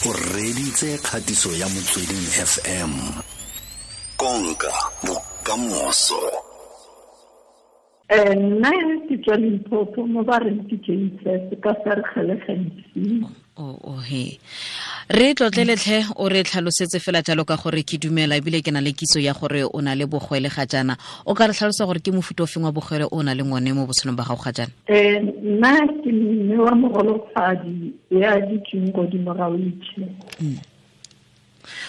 O reditse kgatiso ya Motsweding FM. Konka bokamoso. Nna ke tswa Limpopo, mo ba reng ke JSS ka Vergelegen. O he re tlotleletlhe, o re tlhalosetse fela jalo ka gore ke dumela ebile ke na le kitso ya gore o na le bogwele ga jaana. O ka re tlhalosa gore ke mofuta o feng wa bogwele o na leng one mo botshelong ba gago ga jaana? Nna ke mme wa mogolofadi ya dutseng godimo ga wheelchair.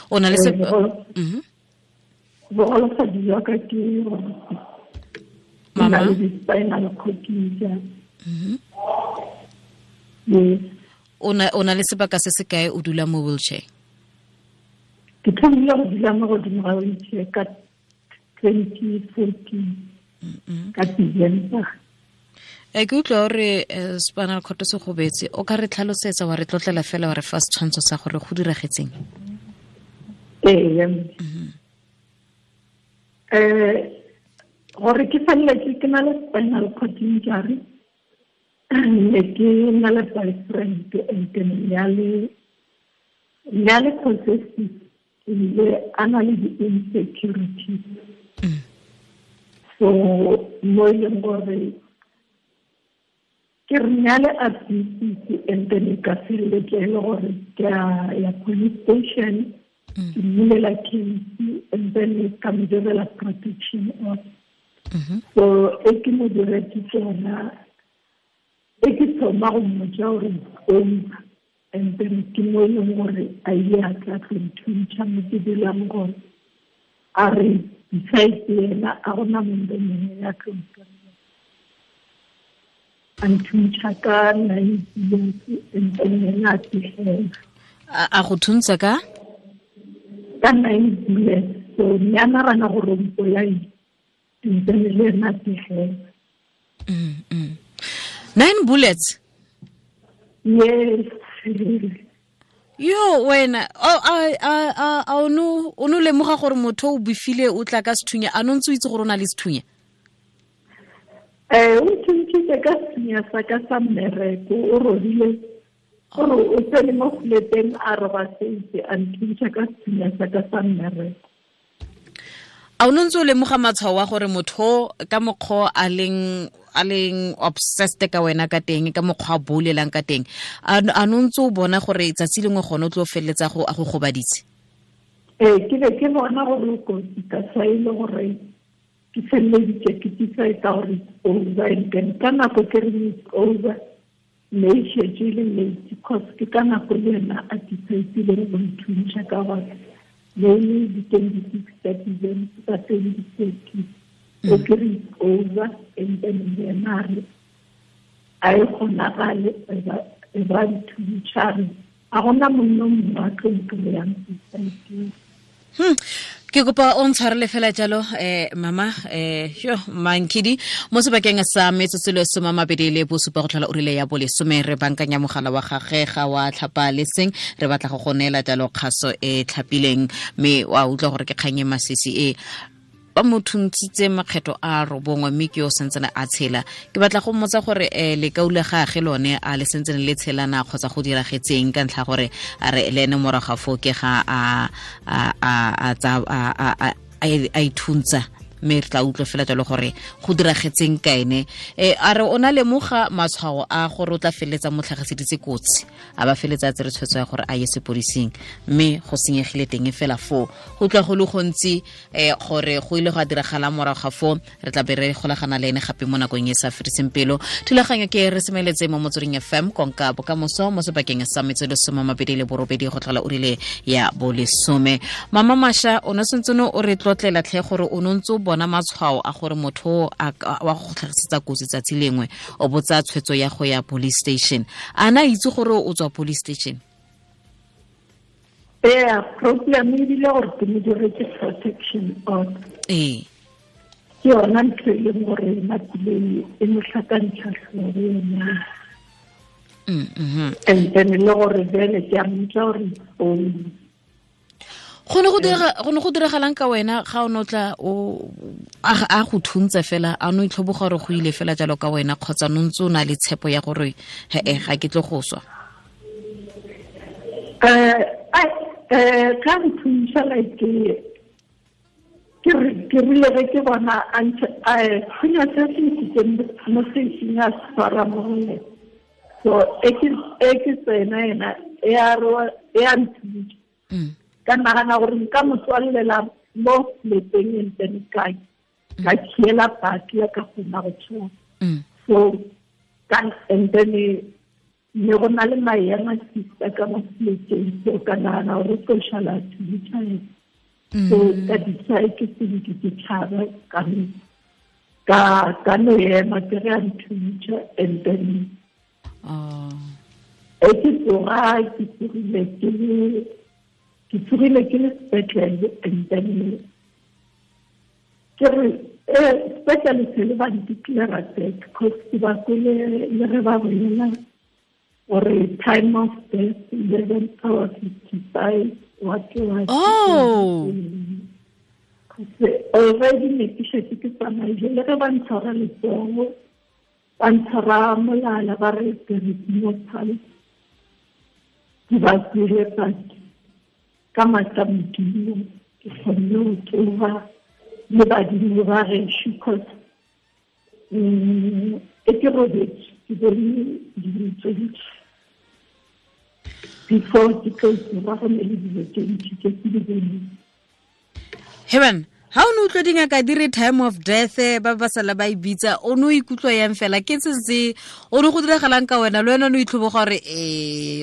O na le se Bogolofadi jwa ka ke Mama? Na le di-spinal cord injury. Yes. O na le sebaka se se kae o dula mo wheelchair? Ke thomile go dula mo godimo ga wheelchair ka 2014, ka December. Ke utlwa gore spinal cord se gobetse. O ka re tlhalosetsa, wa re tlotlela fela, wa re fa setshwantsho sa gore go diragetseng? Ee. Gore ke feleletse ke na le spinal cord injury, ne ke na le boyfriend and then ne a le possessive, ebile a na le di-insecurities. So mo e leng gore ke re ne a le abusive, and then ka feleletsa e le gore ke a ya police station, ke mmulela case, and then ka mo direla protection order. So e ke mo diretse tsona, e ke thoma go mmotsa gore over, and then ke mo e leng gore a ile a tla tlo nthuntšha mo ke dulang gone. A re besides yena a gona mongwe mongwe ya tlo ntirela. A nthuntšha ka 9 years, and then yena a tigela. A go thuntsa ka? Ka 9 years. So ne a nagana gore o mpolaile, and then le ena a tigela. 9 bullets? Yes. Yo wena, a o no lemoga gore motho o befile o tla ka sethunya, a no ntse o itse gore o na le sethunya? O nthuntshitse ka sethunya sa ka sa mmereko, o robile gore o tsene mo fleteng a roba setse, a nthuntšha ka sethunya sa ka sa mmereko. A o no ntse o lemoga matshwao a gore motho ka mokgwa a leng obsessed ka wena ka teng, ka mokgwa a bolelang ka teng, a no ntse o bona gore tsatsi lengwe gone o tlo feleletsa go a go gobaditse? Ke be ke bona gore o kotsi, ka sa e le gore ke feleleditse ke decide gore it's over, and then ka nako ke reng it's over, ne e šetše e le late, because ke ka nako le ena a decide-ileng go nthuntšha ka gore ne e le di-26 tsa December tsa 2013. O ke re it's over, and then yena a re a e kgonagale, e ba nthuntšha, a re a gona monna mongwe a tlo nkry-ang society. Ke kopa o ntshwarele fela jalo, mama, yo Mankidi, mo sebakeng sa metsotso le 27 go tlhola ura ya bolesome, re bankanya mogala wa gagwe ga wa tlhapa le seng, re batla go go neela jalo kgaso e tlhapileng, mme wa utlwa gore ke kgang e masisi e ba mo thuntshitse makgetho a 9, mme ke yo sentsene a tshela. Ke batla go mmotsa gore lekau la gagwe lone a le sentsene le tshelana kgotsa go diragetseng, ka ntlha gore a re le ene morago ga foo ke ga a ithuntsa, mme re tla utlwa fela jalo gore go diragetseng ka ene. A re o na lemoga matshwao a gore o tla feleletsa mo tlhagiseditse kotsi, a ba feleletsa a tsere tshwetso ya gore a ye sepodising, mme go senyegile teng fela foo. Go utlwa go le gontsi gore go ile go a diragala morago ga foo, re tla be re golagana le ene gape mo nakong e sa fediseng pelo. Thulaganyo ke re semeletse mo Motsweding FM, konka bokamoso mo sebakeng sa metsotso 28 go tlhola ura ya bolesome. Mama Masha, o ne sentse o re tlotlela tlhe gore o ne ntse o bona matshwao a gore motho wa go tlhagisetsa kotsi tsatsi lengwe, o botsa tshwetso ya go ya police station. A na itse gore o tswa police station? Ee, problem ebile gore ke mo diretse protection order. Ke yona ntho e leng gore nakile e mo tlhakantsha tlhogo yona. And then le gore bjale ke a mmotsa gore o Go ne go diragalang ka wena ga o no tla o a go thuntse fela, a no itlhoboga gore go ile fela jalo ka wena, kgotsa no ntse o na le tshepo ya gore he ga ke tlo go swa? Ka nthuša like ke rile ge ke bona a thunya se se ntšhitseng mo sešing a se tshwara mo go yena. So e ke tsena yena e a nthuša. Ka nagana gore nka mo tswallela mo lepeng and then ka khiela paki ya ka kgona go tshwara. So and then ne go na le maemo sister ka mo seleteng, so ka nagana gore tlo šala thuša yena. So ka decide ke se ke tšhaba ka no ema ke re a nthuša and then e ke tsoga ke tsogile ke le sepetlele and then ke re sepetlele se le ba nticlara dead because ke ba kwele le ge ba bolela gore time of death 11:55 what. Oh, already ne ke šetše ke tsamaile le ge ba ntshwara letsogo ba ntshwara molala ba re there is no pulse. Ke ba kwele but ka maatla Modimo ke kgonne go tsoga le badimo ba gešo cause e ke robetse ke bone dilo tse dintši before ke tlo tsoga go ne le dilo tse ntši tse ke di boneng. Heban, ha o ne utlwa dingaka di re time of death ba ba sala ba e bitsa, o ne o ikutlwa yang fela ke se se o ne go diragalang ka wena le wena o ne o itlhoboga gore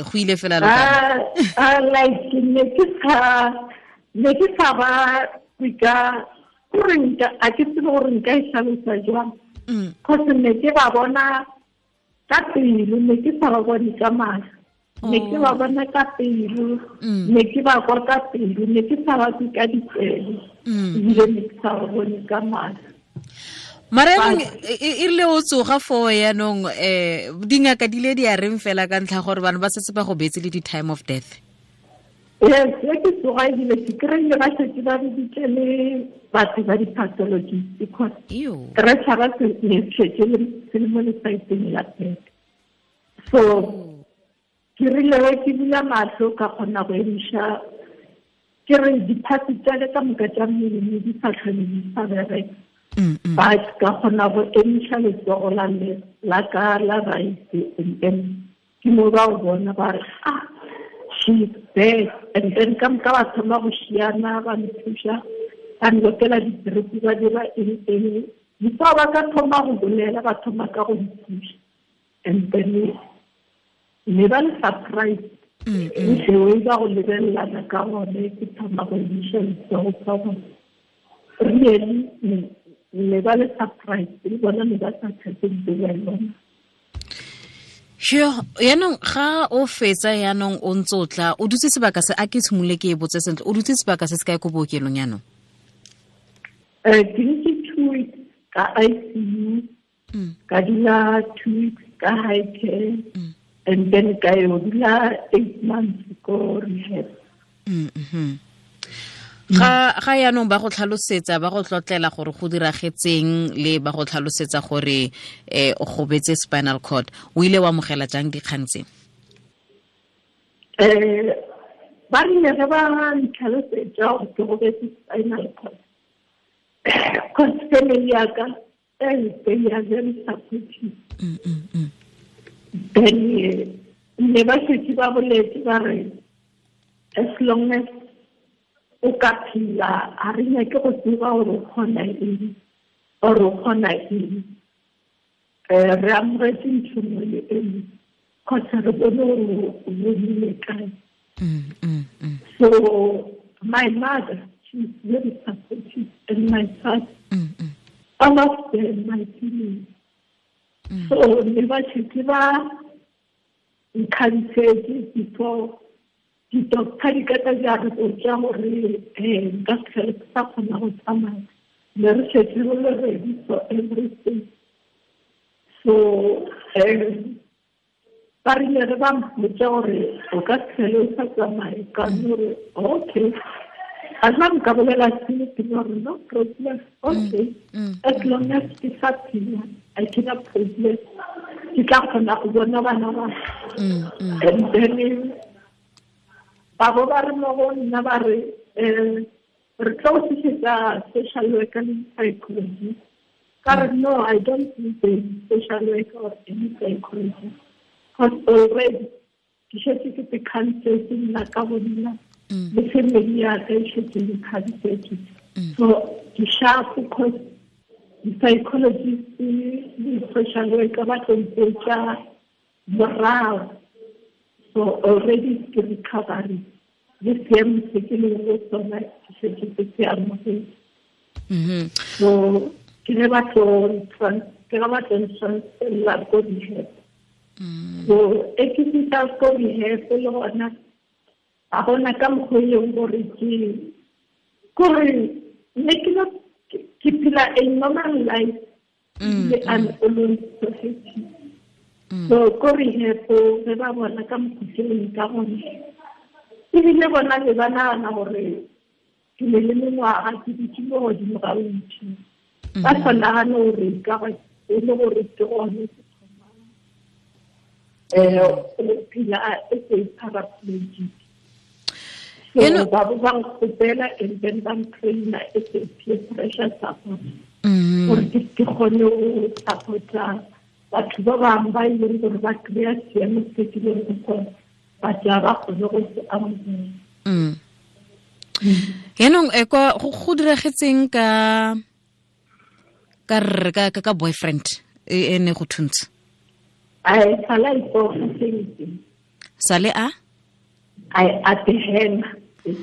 go ile fela le ka like ne ke sa ba ka gore nka a ke tsebe gore nka e hlalosa jwang cause ne ke ba bona ka pelo, ne ke sa ba bone ka mahlo, ne ke ba bona ka pelo, ne ke ba kwa ka pelo, ne ke sa ba kwe ka ditsebe, ebile ne ke sa ba bone ka mahlo. Mara e rile o tsoga foo yaanong dingaka di le di a reng fela ka ntlha gore bana ba setse ba go beetse le di-time of death? Yes, ke tsoga ebile ke kry-ile ba šetše ba biditše le batho ba di-pathologist because re tšhaba ne šetše se le mo lesaeteng la pete. So ke rile ge ke bula mahlo ka kgona go emiša ke re diphatsi tša ka moka tša mmele ne di sa tlhole di sa bereka. But ka kgona go emiša letsogo la ka la right and then ke mo ba go bona ba re she's dead. And then ka moka ba thoma go šiana ba nthuša ba nlokela di-drip ba dira eng before ba ka thoma go bolela ba thoma ka go nthuša and then ne ba le surprise the ba go lebelelana ka gone ke thoma go emiša letsogo ka gone really ne ba le surprise le bona ne ba sa tshepe ba yona. Sure, yaanong ga o fetsa yaanong o ntse o tla o dutse sebaka se a ke tshimolole ke e botse sentle o dutse sebaka se se kae ko bookelong yaanong? Ke ntse 2 weeks ka ICU, ka dula 2 weeks ka high care, and then ka yo dula 8 months ko rehab. Ga yaanong ba go tlhalosetsa ba go tlotlela gore go diragetseng le ba go tlhalosetsa gore o gobetse spinal cord, o ile wa amogela jang dikgang tse? Ba rile ge ba ntlhalosetsa gore ke gobetse spinal cord cause family ya ka they are very supportive. Then ne ba šetše ba boletse ba re as long as o ka phela a re nyake go tseba gore o kgona eng or o kgona eng, re amogetse ntho nngwe le e nngwe kgotsa re bone gore o bonile kae. So my mother, she's very supportive, and my father, all of them, my feelings. So ne ba šetše ba nkhantsetse before di-doctor di ka tla di a re botša gore nka se tlhole ke sa kgona go tsamaya, ne re šetše re le ready for everything. So ba rile re ba mpotša gore o ka se tlhole o sa tsamaye, ka gore okay a nna nka bolela sele ke gore no problem, okay as long as ke sa phela I cannot problem, ke tla kgona go bona bana ba. And then Ba bo ba re mo go nna ba re re tlo tlisetsa social worker le psychologist. Ka re no, I don't need a social worker or any psychologist. Because already ke šetše ke te khansetse nna ka bo nna le family ya ka e šetše le khansetse. So ke sharp because di-psychologist le social worker ba tlo mpotša morago. So already ke recovery le seemo se ke leng go sona ke šetše ke se amogetse. So ke ge ba tlo ntransferela ko rehab. So e ke fihla ko rehab le gona ga gona ka mokgwa e leng gore ke kore ne ke ke phela a normal life le I'm always so happy. So ko rehab ge ba bona ka mokgwa ke leng ka gona ebile bona be ba nagana gore ke ne le mengwaga ke dutše mo godimo ga wheelchair. Ba sa nagane gore ka e le gore ke gone ke thomang go phela as a paraplegic. So ba bo ba nkgopela and then ba ntraina as a peer pressure support gore ke kgone go support-a batho ba bangwe ba e leng gore ba kry-a seemo se ke leng go sona ba tla ba kgone go se amogela. Yaanong kwa go diragetseng ka ka boyfriend e ne go thuntse? Ai sala ipoga sentle. Sale a? Ai a te henga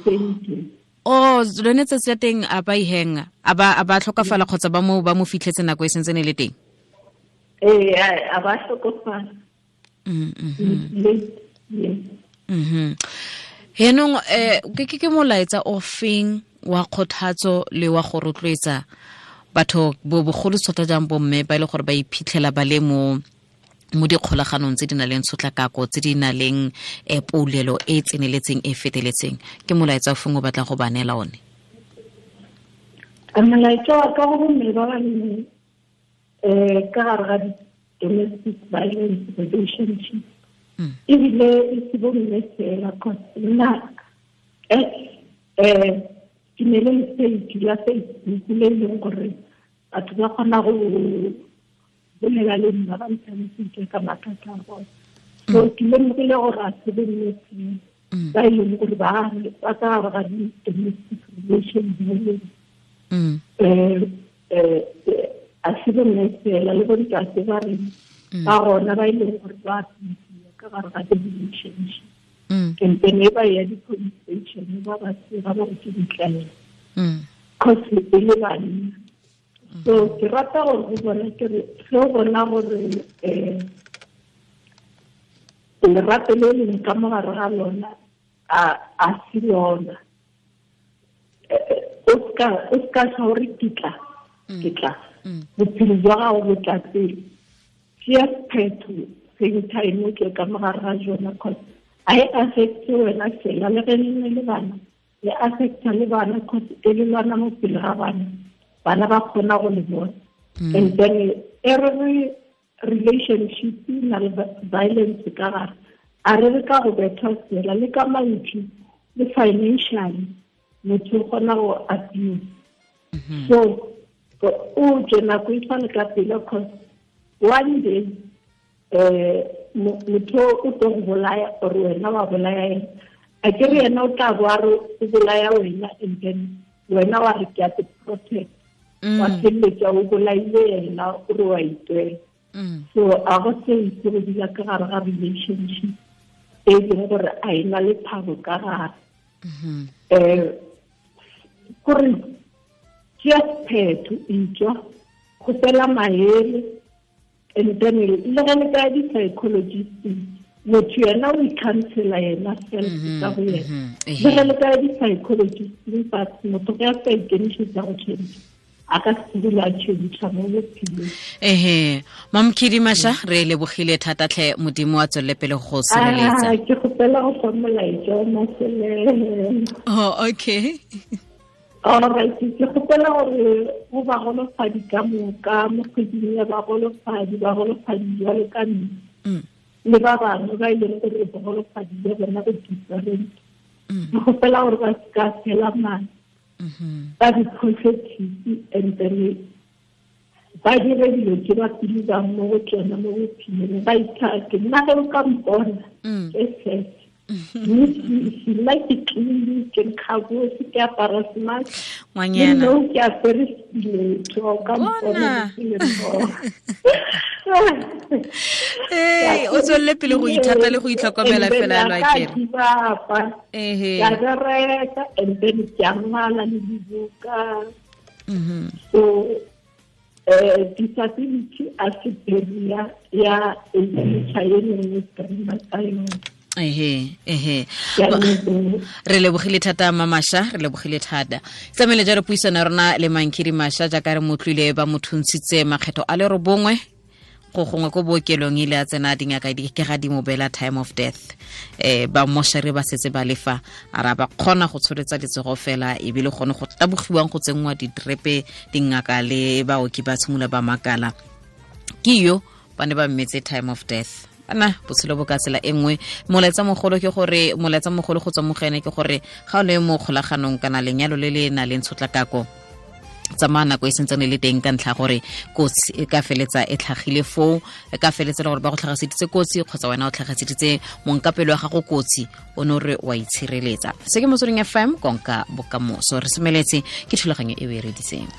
sentle. Oh, lone tsatsi la teng a ba ihenga, a ba tlhokafala kgotsa ba mo fitlhetse nako e sentse ne le teng? Ee, a ba tlhokofala. Yaanong ke molaetsa o feng wa kgothatso le wa go rotloetsa batho bogolo thata jang bomme ba e le gore ba iphitlhela ba le mo dikgolaganong tse di na leng tshotlakako, tse di na leng poulelo e tseneletseng e feteletseng? Ke molaetsa o feng o batlang go ba neela one? Molaetsa wa ka go bomme ba ba leng ka gare ga domestic violence relationship ebile e se bomme fela, cause nna ke ne le page ya Facebook le e leng gore batho ba kgona go bolela le nna ba ntlhalositse ka mathata a bone. So ke lemogile gore a se bomme fela ba e leng gore ba ka gare ga di-domestic relation violence. A se bomme fela le bontate ba reng ba gona ba e leng gore ba ka gare ga di-relationship. And then e ba ya di-police station ba ba sega ba re ke ditlaela cause e le banna. So ke rata gore go bona ke re ge o bona gore lerato le leng ka mo gare ga lona a se lona, o ska tla gore ke tla bophelo jwa gago bo tla pele. Tšea sephetho same time o tle ka mo gare ga jona, cause a e affecte wena fela le ge le ne le bana, e affecta le bana cause e le lwana mo pele ga bana, bana ba kgona go le bona. And then every relationship na le violence ka gare, a re re ka go bethwa fela le ka mantšu le financially motho o kgona go abuse. So o tswe nako e tshwane ka pele, cause one day motho o tlo go bolaya or wena wa bolaya ena. A ke re yena o tla bo a re o bolaya wena and then wena wa re ke a te protect, wa feleletsa o bolaile yena o re wa itwela. So a go se itse go dula ka gare ga relationship e leng gore a e na le thabo ka gare. Kore tšea sephetho, etswa kgopela maele, and then le ge le ka di-psychologist motho yena o i-counsela yena self ka go yena. Le ge le ka di-psychologist but motho ge a sa ikemišetsa go change a ka se dula a change mo bophelong. Ehe, Mamkhidi Masha, re lebogile thata tlhe, Modimo a tswelele pele go sireletsa. Ke kgopela go fa molaetsa o mafelelo. Oh, okay. All right, ke kgopela gore go bagolofadi ka moka mo kgweding ya bagolofadi, bagolofadi jwalo ka nna le ba bangwe ba e leng gore bogolofadi jwa bona bo different. Ke gopela gore ba se ka fela mane, ba be positive and then ba dire dilo tse ba believang mo go tsona mo bophelong, ba ithate. Nna ge o ka mpona ke set, nna ke clean, ke nkgabose, ke apara smart. Ngwanyana. No, ke apere stiletto, o ka mpona ke le mmogo. Ee, o tswelele pele go ithata le go itlhokomela fela lo akere. Ehe. Ka bereka and then ke a ngwala le dibuka. So disability a se barrier ya e nngwe streama tsa yone. Ehe, re lebogile thata Mamasha, re lebogile thata. Tsamaile jalo puisano ya rona le Mankhidi Masha, jaaka re motlwile ba mo thuntshitse makgetho a le 9 go gongwe ko bookelong, ile a tsena dingaka di ke ga di mo beela time of death. Ba moshare ba setse ba lefa, a ra ba kgona go tsholetsa letsogo fela, ebile gone go tabogiwang go tsenngwa ditrepe, dingaka le baoki ba tshimola ba makala. Ke yo ba ne ba mmetse time of death. Ana botshelo bo ka tsela e nngwe. Molaetsa mogolo ke gore, molaetsa mogolo go tswa mo go ene ke gore ga o le mo kgolaganong kana lenyalo le le nang le tshotlakako, tsamaya nako e sentsane le teng, ka ntlha gore kotsi e ka feletsa e tlhagile foo, e ka feletsa le gore ba go tlhagaseditse kotsi kgotsa wena o tlhagaseditse monkapelo wa gago kotsi, o ne o re wa itshireletsa. Se ke Motsweding FM, konka bokamoso. Re semeletse ke thulaganyo e o e reditseng.